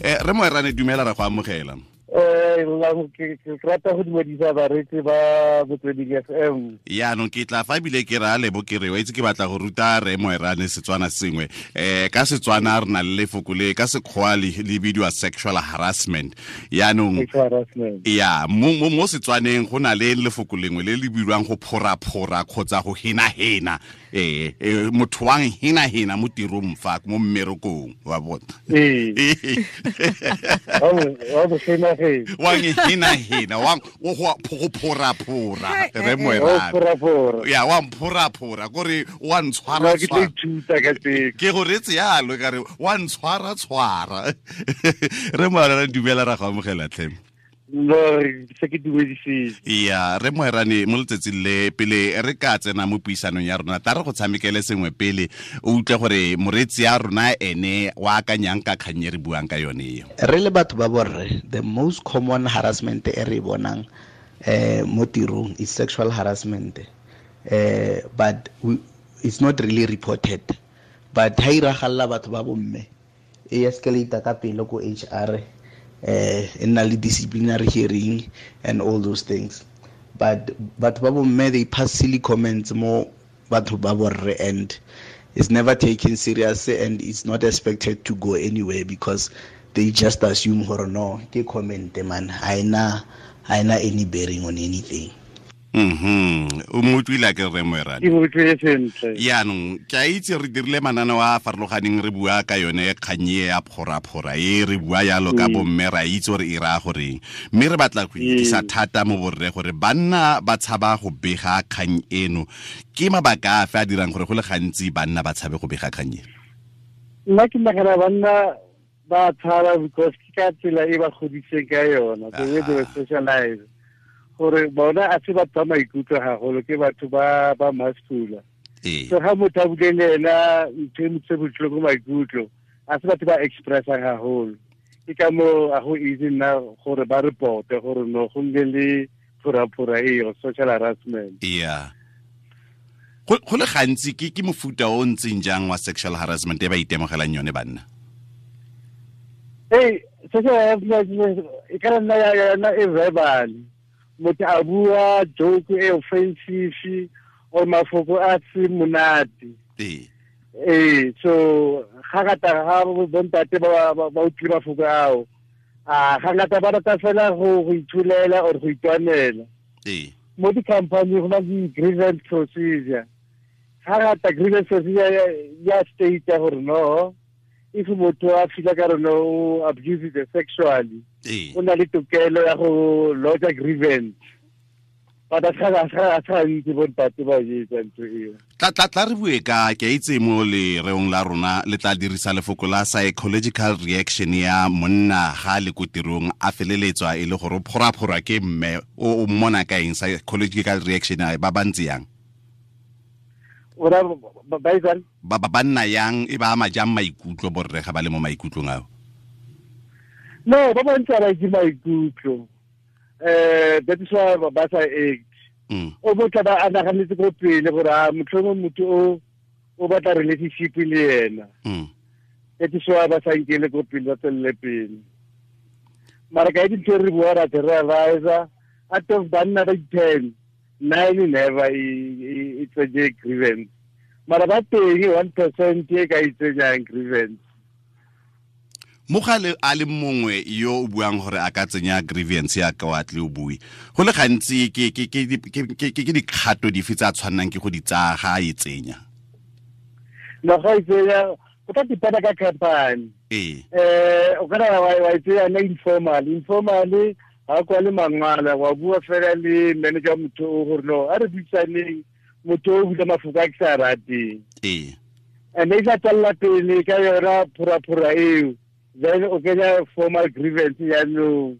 Re Moerane, dumela, ra go amogela. Ke rata go dumedisa bareetsi ba Motsweding FM. Yaanong ke tla fa ebile ke raya lebo ke re wa itse ke batla go ruta re Moerane Setswana sengwe. Ka Setswana re na le lefoko le ka Sekgowa le bidiwa sexual harassment. Yaanong ya mo Setswaneng go na le lefoko lengwe le le bidiwang go phoraphora kgotsa go henahena. Motho wang henahena mo tirong fa mo mmerekong wa bona. Wang henahena wang go phoraphora re Moerane. Ya wa mphoraphora kore wa ntshwara tshwara. Ke go retse yalo ka re wa ntshwara tshwara. Re Moerane, dumela, ra go amogela tlhe. No, se ke dumedisitse. Ya re Moerane, mo letsatsing le pele re ka tsena mo puisanong ya rona, ta re go tshamekele sengwe pele o utlwe gore moreetsi ya rona ene wa akanyang ka kgang e re buang ka yone eo. Re le batho ba borre, the most common harassment e re bonang mo tirong is sexual harassment, but it's not really reported. But ha iragalla batho ba bomme, e escalate ka pele ko HR, e nna le disciplinary hearing and all those things. But batho ba bomme, they pass silly comments mo batho ba borre, and it's never taken seriously, and it's not expected to go anywhere because they just assume gore no, ke comment man, ha ena any bearing on anything. O mo utlwile ke re Moerane? Ke mo utlwile sentle. Yaanong ke a itse re dirile mananeo a a farologaneng re bua ka yone kgang e ya phoraphora e re bua yalo ka bomme, ra itse gore e raya goreng, mme re batla go ikisa thata mo borre gore banna ba tshaba go bega kgang eno. Ke mabaka afe a dirang gore go le gantsi banna ba tshabe go bega kgang eno? Nna ke nagana banna ba tshaba because ke ka tsela e ba godiseng ka yona, the way they were socialized. Gore bona a se batho ba maikutlo haholo, ke batho ba masculine. So ga motho a bule le ena ntho e motse botlhoko maikutlo, a se batho ba expressang haholo. Ke ka moo a go easy nna gore ba reporte gore no go nne le phoraphora eo, social harassment. Yeah. Go le gantsi ke mofuta o ntseng jang wa sexual harassment e ba itemogelang yone banna? Hey, sexual harassment e ka nna ya nna e verbal. Motho a bua joke e offensive or mafoko a se monate. So ga ngata ga bontate ba utlwile mafoko ao, a ga ngata ba rata fela go ithulela or go itwanela. Mo di-company go na le grievance procedure. Ga ngata grievance procedure ya state gore no, if motho a fila ka rona o abuse it sexually, o na le tokelo ya go lodge grievance. But a sa itse bontate ba etsa ntho eo. Tla re bue ka ke itse mo lereong la rona le tla dirisa lefoko la psychological reaction ya monna ga le ko tirong a feleletswa e le gore o phoraphora ke mme o mmona ka eng psychological reaction ba bantsi yang? Ora ba ba nna yang e ba ama jang maikutlo borre ga ba le mo maikutlong ao? No, ba bantsi ba itse maikutlo. That is why ba sa act. O botla ba a naganetse ko pele gore a motlhomong motho o batla relationship le ena. That is why ba sa nkele ko pele, ba tswelele pele. Mara ka dintho re bua ra realize out of banna ba 10, 9 never e tsenye grievance. Mara ba teng 1% e ka e tsenyang grievance. Mogale a le mongwe yo o buang gore a ka tsenya grievance ya ka wa tle o bue. Go le gantsi ke dikgato dife tsa tshwannang ke go di tsaya ga e tsenya? No, ga e tsenya go tla dependa ka company. O kana wa e tsenya na informal. Informal ga kwa le mangwala wa bua fela le manager motho o gore no a re buisaneng motho o bula mafoko a ke sa rateng. And e sa tswella pele ka yona phoraphora eo. Then o kenya formal grievance yaanong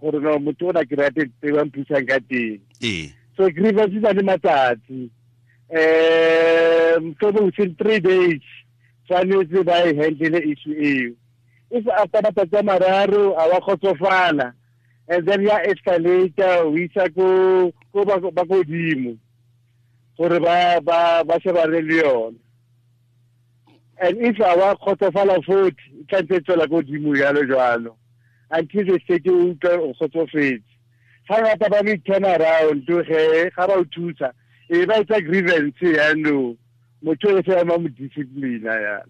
gore no motho o na ke rate tse ba mphusang ka teng. So grievance e na le matsatsi. Mohlomong within 3 days tshwanetse ba e handle issue eo. If after matsatsi a mararo a wa kgotsofala, and then ya escalate o isa ko ba godimo gore ba shebane le yone. And if a wa kgotsofala futhi, e tla ntse e tswela ko godimo jalo jalo until the state o utlwa o kgotsofetse. Ga ngata ba le turn around ge ga ba o thusa, e ba etsa grievance yaanong motho o se ema mo discipline yana.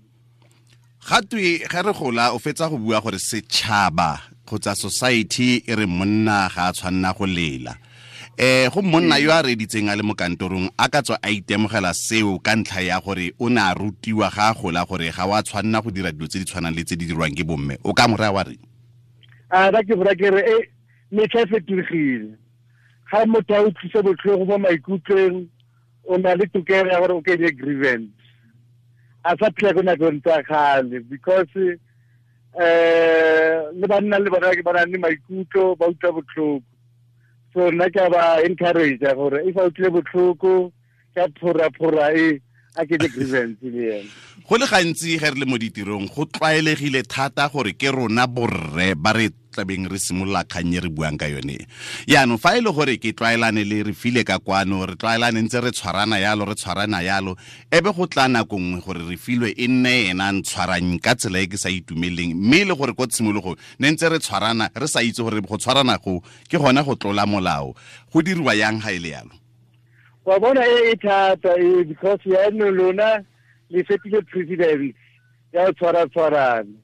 Ga twe ge re gola o fetsa go bua gore setšhaba kgotsa society e re monna ga a tshwanna go lela. Go monna yo a reditseng a le mo kantorong a ka tswa a itemogela seo ka ntlha ya gore o ne a rutiwa ga a gola gore ga wa tshwanna go dira dilo tse di tshwanang le tse di dirwang ke bomme. O ka mo raya wa reng? A ba ke bora ke re e metlha e fetogile. Ga motho a utlwise botlhoko mo maikutlong, o na le tokelo ya gore o kenye grievance. A sa phela ko nakong tsa kgale because le banna le bona ba na le maikutlo, ba utlwa botlhoko. So nna ke a ba encourage gore if a utlwile botlhoko ka phora-phora e a kenye grievance le ena. Go le gantsi ge re le mo ditirong go tlwaelegile thata gore ke rona borre ba re tlabeng re simolola kgang e re buang ka yone. Yaanong fa e le gore ke tlwaelane le re file ka kwano, re tlwaelane ntse re tshwarana yalo, re tshwarana yalo, e be go tla nako nngwe gore re filwe e nne ena a ntshwarang ka tsela e ke sa itumeleng, mme e le gore ko tshimologong ne ntse re tshwarana re sa itse gore go tshwarana go ke gona go tlola molao. Go diriwa yang ga e le yalo? Wa bona e e thata e, because yaanong lona le fetile precedence ya go tshwara-tshwarana.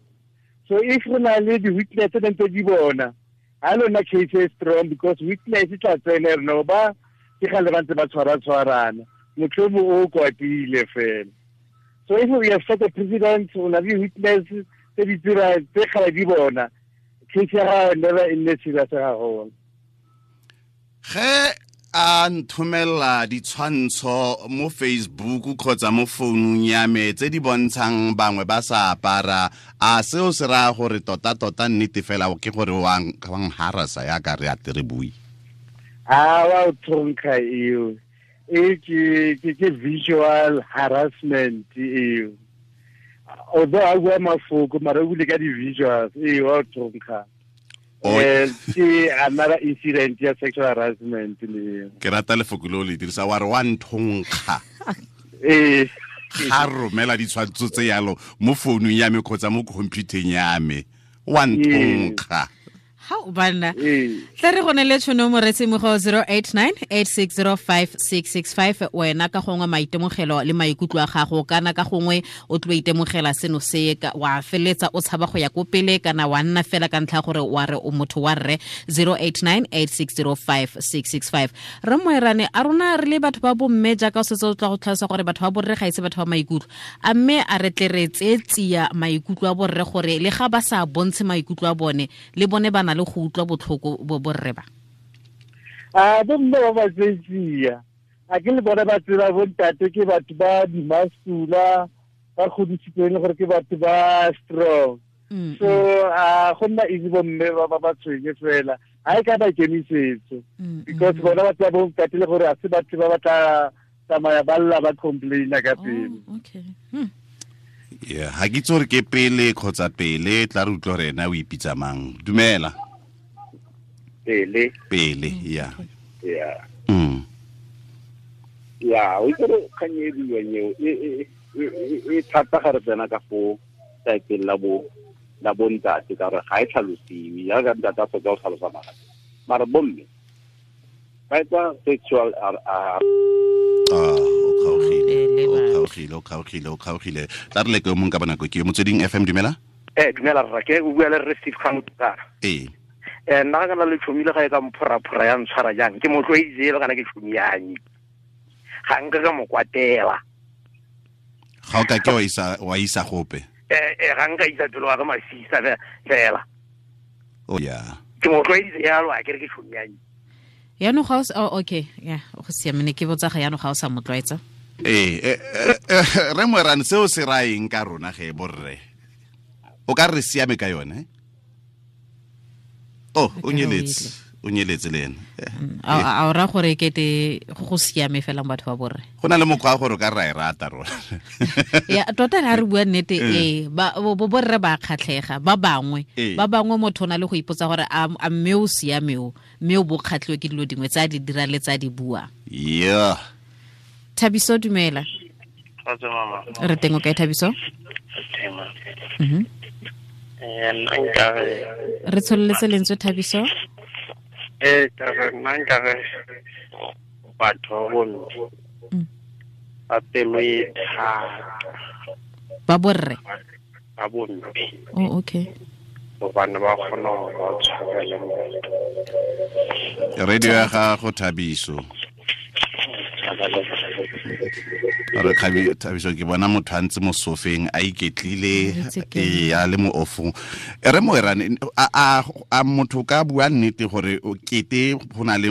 So if re na le di-witness tse ntse di bona, ha lona case e strong because witness e tla tsena re no ba ke gale ba ntse ba tshwara-tshwarana, motlhomo o kwatile fela. So if we have set a precedent, o na le witness tse di tsira tse gale di bona, case ya gago never e nne serious haholo. Ge a nthomela ditshwantsho mo Facebook kgotsa mo founung ya me tse di bontshang bangwe ba sa apara, a seo se raya gore tota-tota nnete fela ke gore wa ngharasa yaka re a tere bui? A wa o thonkga eo. E ke visual harassment eo. Although a bua mafoko, mara o bule ka di-visuals, e wa o thonkga. Ke another incident ya sexual harassment le. Ke rata lefoko leo le dirisa, wa re wa nthonkga. Ga romela ditshwantsho tse yalo mo founung ya me kgotsa mo computereng ya me, wa nthonkga. Ha o banna. Tla re go ne le tšhono moretsi mo go 0898605665, wena ka gongwe maitemogelo le maikutlo a gago, kana ka gongwe o tlo itemogela seno se ka wa feletsa o tshaba go ya ko pele, kana wa nna fela ka ntlha gore wa re o motho wa rre. 0898605665. Re Moerane, a rona re le batho ba bomme jaaka o setse o tla go tlhalosa gore batho ba borre ga ise batho ba maikutlo, a mme a re tle re tseetsia maikutlo a borre gore le ga ba sa bontshe maikutlo a bone, le bone ba na le go utlwa botlhoko bo borre ba? A bomme ba ba tseetsia, a ke le bona ba tseba bontate ke batho ba dimasula, ba godisitsweng gore ke batho ba strong. So a go nna easy bomme ba ba ba tshwenye fela, ha e ka ba ikemisetso, because bona ba tseba bontate le gore a se batho ba ba tla tsamaya ba lla ba complaina ka pele. Okay. Yeah, ha ke itse gore ke pele kgotsa pele, tla re utlwe gore ena o ipitsa mang. Dumela. Pele. Pele, yeah. Yeah. Yeah, o itse gore kgang e buiwang eo, e thata ga re tsena ka fo saeteng la bo, la bontate, ka gore ga e tlhalosiwe, jaaka ntate a fetsa go tlhalosa mara. Mara bomme, ba etsa sexual O kgaogile, o kgaogile, o kgaogile, o kgaogile. Tla re leke o mongwe ka bonako ke yo. Motsweding FM, dumela. Dumela rra, ke o bua le rre Steve Kgang. Nna ga kana le tšhomi le ga e ka mphoraphora ya ntshwara jang, ke mo tlwaeditse kana ke tšhomi ya me. Ga nka ka mo kwatela. Ga o ka ke wa isa gope? Ga nka isa pelo wa ka masisa fela. Oh, yeah. Ke mo tlwaeditse jalo, a ke re ke tšhomi ya me. Yaanong ga o sa, oh, okay, yeah, go siame, ne ke botsa ga yaanong ga o sa mo tlwaetsa. Re Moerane, seo se raya eng ka rona ge borre? O ka re siame ka yone? Oh, o nyeletse, o nyeletse le ene. A o raya gore kete go siame fela batho ba borre? Go na le mokgwa wa gore o ka ra e rata rona. Ya, tota ha re bua nnete, bo borre ba kgatlhega, ba bangwe. Ba bangwe motho o na le go ipotsa gore a mme o siame o, mme o bo kgatlhiwe ke dilo dingwe tse a di dira le tse a di bua. Yeah. Thabiso, dumela. Re teng o kae Thabiso? Teng. Nna nkare re tsholeletse lentswe Thabiso. Ka re nna nkare batho ba bomme ba pelo e thata. Ba borre? Ba bomme. Oh, okay. Gobane ba kgona gore ba tshwarele motho. Radio ya gago Thabiso. Re Thabiso ke bona motho a ntse mo sofeng a iketlile a le mo ofong. Re Moerane, a motho ka bua nnete gore kete go na le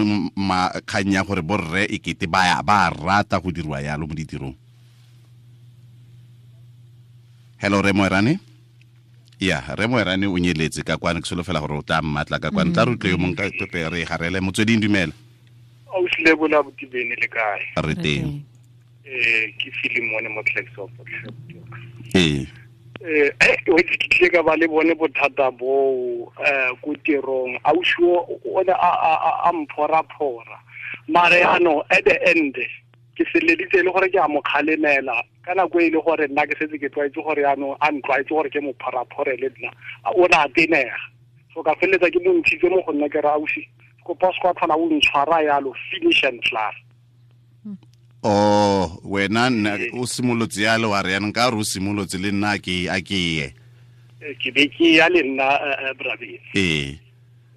kgang ya gore borre e kete ba rata go dirwa yalo mo ditirong. Hello Re Moerane. Ya, Re Moerane o nyeletse ka kwane, ke solofela gore o tla mmatla ka kwane. Tla re utlwe yo mongwe ka pepe re garele. Motsweding dumela. Ausi Lebola Botibene le kae? Re teng. Ke Filimone mo Klerksdorp. O itse ke tlile ka ba le bone bothata boo ko tirong. Ausi o ne a mphoraphora. Mare yaanong at the end ke seleditse le gore ke a mo kgalemela ka nako e le gore nna ke setse ke tlwaetse gore yaanong a ntlwaetse gore ke mo phoraphore le nna o ne a tenega. So ka feleletsa ke mo ntshitse mo go nna ke re ausi kopa se kwa tlhola o ntshwara yalo, finish and klaar. Oh, wena o simolotse yalo wa re yanong ka re o simolotse le nna ke a ke ye. Ke be ke ya le nna brabeng.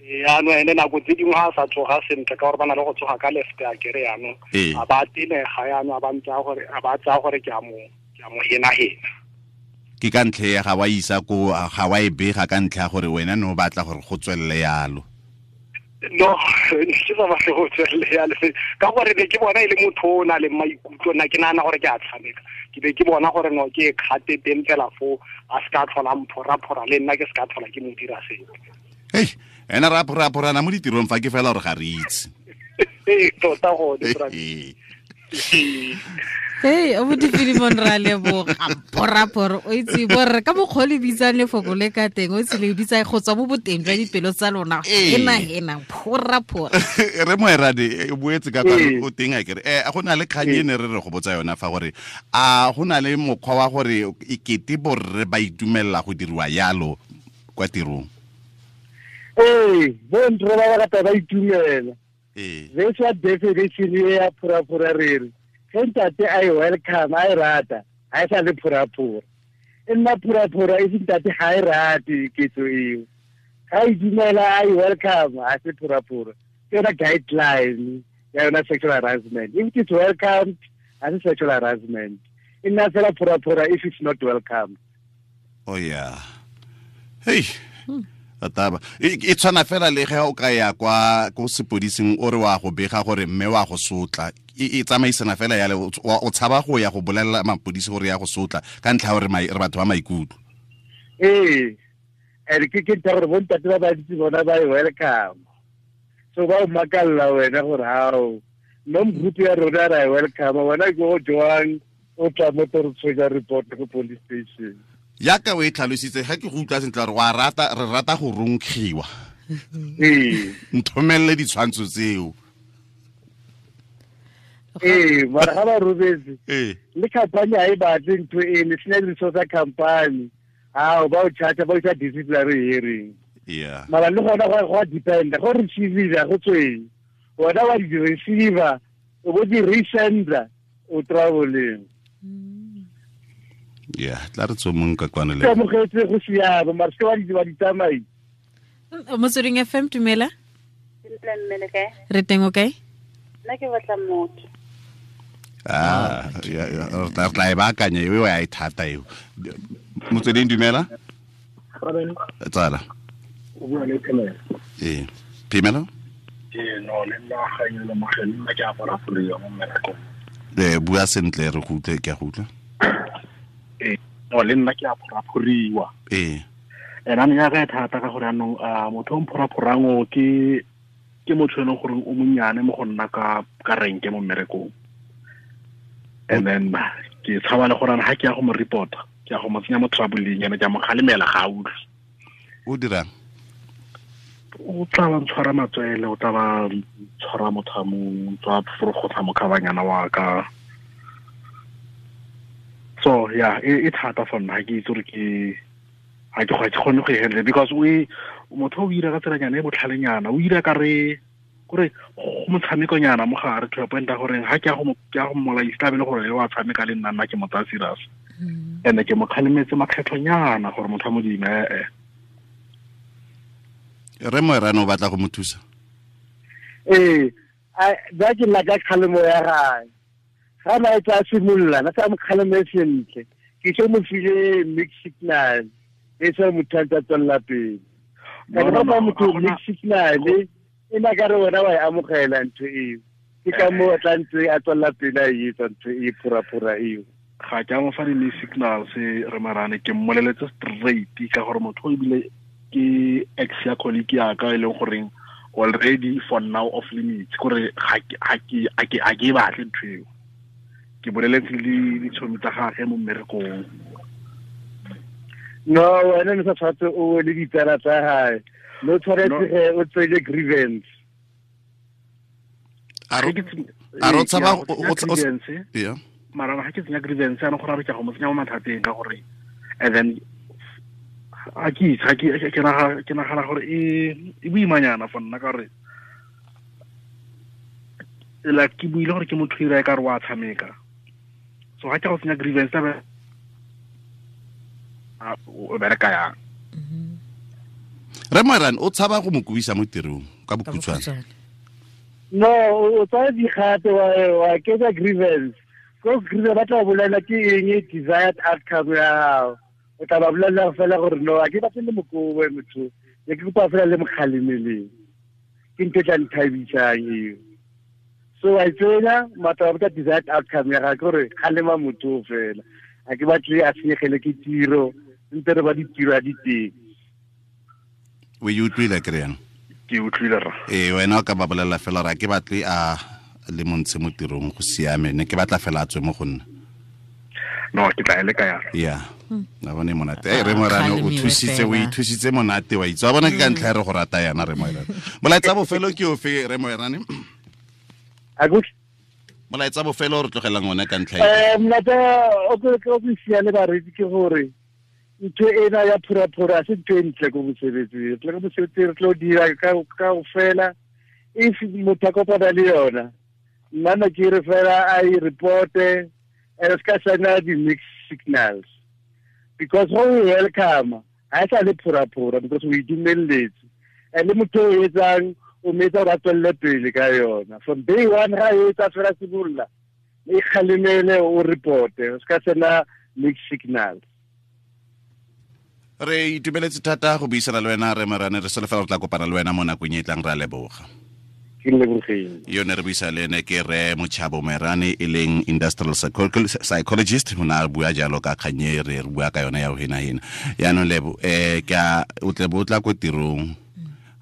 Yaanong ene nako tse dingwe ga a sa tsoga sentle ka gore ba na le go tsoga ka left a kere yaanong a ba tenega yaanong a ba ntse gore a ba tsaya gore ke a mo henahena. Ke ka ntlha ya ga wa isa ko ga wa e bega ka ntlha ya gore wena ne o batla gore go tswelele yalo. No, ke sa batle go tswelele yalo ka gore be ke bona e le motho o na le maikutlo, nna ke nagana gore ke a tshameka. Ke be ke bona gore no ke kgate teng fela foo a se ka tlhola mphoraphora le nna ke se ka tlhola ke mo dira sepe. Hei, ena ra phoraphorana mo ditirong fa ke fela gore ga re itse. Tota gone. Hey, o Filimon ra leboga phoraphora o itse borre ka mokgwa le bitsang lefoko le ka teng o itse le bitsa go tswa mo boteng jwa dipelo tsa lona hena phoraphora. Re Moerane o boetse ka kwa o teng a kere go na le kgang e ne re re go botsa yona fa gore a go na le mokgwa wa gore e kete borre ba itumelela go diriwa yalo kwa tirong. Bo ntre ba rata ba itumela. This what definition ya phoraphora re re ntate a e welcome a e rata ha e sa le phoraphora. E nna phoraphora e se ntate ha e rate ketso eo. Ha e dumela a e welcome ha se phoraphora. Ke yona guideline ya yona sexual harassment. If it's welcomed, ha se sexual harassment. E nna fela phoraphora if it's not welcome. Oh yeah. Hey. Taba e tshwana fela le ge o ka ya kwa ko sepodising o re wa go bega gore mme wa go sotla e tsamaisana fela yale o tshaba go ya go bolelela mapodisi gore ya go sotla ka ntlha gore re batho ba maikutlo. Ere ke ke gore bontate ba bantsi bona ba e welcome. So ba o makalla wena gore hao no group ya rona ra e welcome wena ke go jwang o tla mo tshwenya report go police station. Yaka o e tlhalositse ga ke go utlwa sentle gore wa rata re rata go ronkgiwa. Nthomelele ditshwantsho tseo. Mara ga ba robetse. Le company ha e batle ntho e le sena di-resource tsa company. Ao ba o charge ba o isa disciplinary hearing. Yeah. Mara le gona go a depend go receive go tsweng. Wena wa di receiver o bo di resender o traveleng. Yeah, tla re tsomong ka kwana le. Ke amogetse go siama mara se wa di tsamai. Motsweding FM dumela. Sentle mme le kae? Re teng o kae? Nna ke batla motho. Re tla e baakanya eo ya e thata eo. Motsweding dumela. Tsala. O bua le Phemelo. Phemelo? No le nna ga e le mogele nna ke apara folo mo mmerekong. Bua sentle re go utlwe ke a go utlwa. No le nna ke a phoraphoriwa. Ena ne ya ka thata ka gore anong motho o mphoraphorang o ke motho e leng gore o monnyane mo go nna ka renke mo mmerekong. And then ke tshaba le gore ha ke ya go mo reporta, ke ya go mo tsenya mo trouble-eng ene ke a mo kgalemela ga a utlwe. O dirang? O tla ba ntshwara matswele, o tla ba tshwara mothamong, tswa forogotla mokhabanyana wa ka. So yeah, e thata for nna, ke itse gore ke ga ke kgone go e handle because o motho o ira ka tselanyana e botlhalenyana, o ira ka re kore go motshamekonyana mo gare to a point ya gore ga ke ya go mmolaisa tla be le gore wa tshameka le nna ke mo tsaya serious. And ke mo kgalemetse makgetlhonyana gore motho wa Modimo ee. Re Moerane o batla go mo thusa. Ee, ba ke nna ka kgalemo ya gae. Ga na e tla simolola, na sa mo kgaleme sentle. Ke se mo file mixed signal. E se motho a tswella pele. Ka ba motho mixed signal e na ka re wena wa e amogela ntho eo. Ke ka moo a tla ntse a tswella pele a e etsa ntho e phura-phura eo. Ga ke a mo fa di-mixed signals re Moerane, ke mmoleletse straight ka gore motho ebile ke ex ya colleague ya ka e leng goreng already for now off limits, gore ga ke e batle ntho eo. Ke boleletse le ditshomi tsa gagwe mo mmerekong. No, wena ne sa tshwanetse o le ditsala tsa gae. No tshwanetse ge o tseye grievance. A ro tshaba yeah. Mara ga ke tsenya grievance ana gore re ke go mo tsenya mo mathateng ka gore and then a ke ke nagana gore e boimanyana for nna ka gore like ke buile gore ke motho ira ka re wa tshameka. So ga ke go tsenya grievance o bereka yang. Re Moerane o tshaba go mo kubisa mo tirong ka bokhutshwane. No, o tsaya dikgato wa ketsa grievance. Ko grievance ba tla bolela ke eng e desired outcome ya gago. O tla ba bolela fela gore no, a ke batle le mokobo motho. Ne ke kopa fela le mokgalemeleng. Ke ntho e tla nthabisang eo. So I tsena matla ba desired outcome ya gago gore kgalema motho fela. A ke batle a senyegele ke tiro, ntse re ba ditiro a diteng. O e utlwile kry-ang? Ke utlwile rra. Ee, wena o ka ba bolelela fela gore a ke batle a le montshe mo tirong go siame, ne ke batla fela a tswe mo go nna. No, ke tla e leka yalo. Yeah. Na bone monate. Re Moerane o thusitse, o ithusitse monate wa itse. Wa bona ke ka ntlha ya re go rata yana re Moerane. Molaetsa bofelo ke ofe re Moerane? Molaetsa bofelo re tlogelang one ka ntlha e. Molaetsa o ke siale bareetsi ke gore ntho ena ya phura-phura se ntho e ntle ko mosebetsing. Re tle ko mosebetsing re tlo dira ka fela. If motho a kopana le yona, nna ne ke re fela a e reporte and se ka sena di-mixed signals. Because go o welcome, ha e sa le phura-phura because o e dumelletse. And le motho o etsang o metsa gore a tswelele pele ka yona. From day one ga e etsa fela simolola, e kgalemele o reporte, o se ka sena mixed signals. Re itumeletse thata go buisana le wena re Moerane, re solofela re tla kopana le wena mo nakong e tlang, re a leboga. Ke lebogile. Yo ne re buisa le ene ke re Mochabo Moerane e leng industrial psychologist, o ne a bua jalo ka kgang e re bua ka yona ya go hena-hena. Yaanong Lebo, ke a o tle bo tla ko tirong,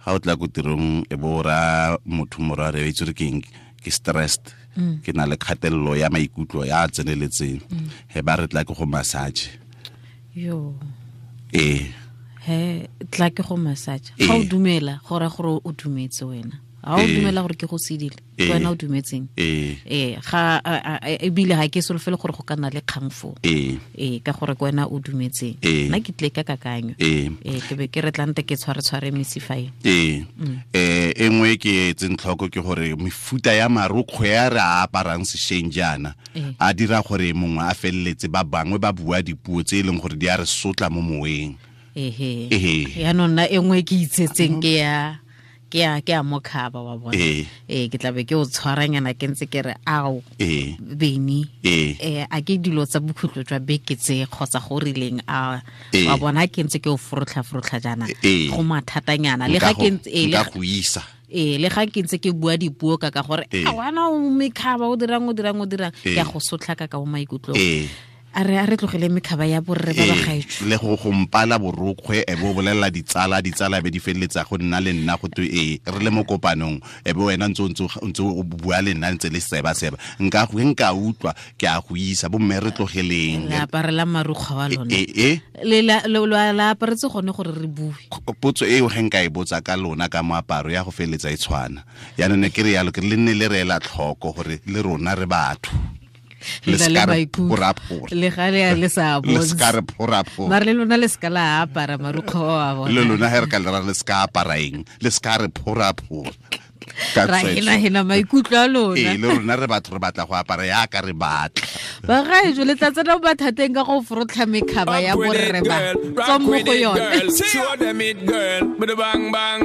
ga o tla ko tirong e bo ra motho mora re itse re ke eng, ke stressed, ke na le kgatelelo ya maikutlo ya tseneletseng, he ba re tla ke go massage. Yo. Ee. He tla ke go massage. Ga o dumela gore gore o dumetse wena. Ga o dumela gore ke go sedile, wena o dumetseng. Ee, ga ebile ga ke solofele gore go ka nna le kgang foo. Ee, ka gore ke wena o dumetseng. Nna ke tle ka kakanyo. Ee, ke be ke re tlante ke tshware mesifa e. Ee. E nngwe ke etseng tlhoko ke gore mefuta ya marokgwe a re a aparang sešweng jaana a dira gore mongwe a feleletse ba bangwe ba bua dipuo tse e leng gore di a re sotla mo moweng. Ehe. Yaanong nna e nngwe ke itsetseng ke ya ke a mokhaba wa bona. Ee, ke tla be ke o tshwaranyana ke ntse ke re ao beni. A ke dilo tsa bokhutlo jwa beke tse kgotsa go rileng a wa bona ke ntse ke o forotlha jaana go mathatanyana le ga ke ntse nka go isa. Le ga ke ntse ke bua dipuo ka gore a wana o mekhaba o dirang ke a go sotlha ka mo maikutlong. A re tlogele mekhaba ya borre ba ba gaetsho. Le go gompala borokgwe e bo bolela ditsala be di feleletsa go nna le nna go twe re le mo kopanong e be wena ntse o bua le nna ntse le seba nka nka utlwa ke a go isa bo mme re tlogeleng. Le aparela marukgwe wa lona. Le la aparetse gone gore re bue. Potso eo ge nka e botsa ka lona ka moaparo ya go feleletsa e tshwana. Yaanong ne ke re yalo ke le nne le re ela tlhoko gore le rona re batho. Le ska re phoraphora. Le ga le le sa Le ska re phoraphora. Mare le lona le ska la apara marukgo a bona. Le lona he re ka le ra le ska apara eng. Le ska re phoraphora. Ra hena maikutlo a lona. Ee, le rona re batho re batla go apara yaka re batla. Bagaetsho le tla tsena mo mathateng ka go forotlha mekhaba ya borre ba. Tswang mo go yone. Show them it, girl. Bang bang.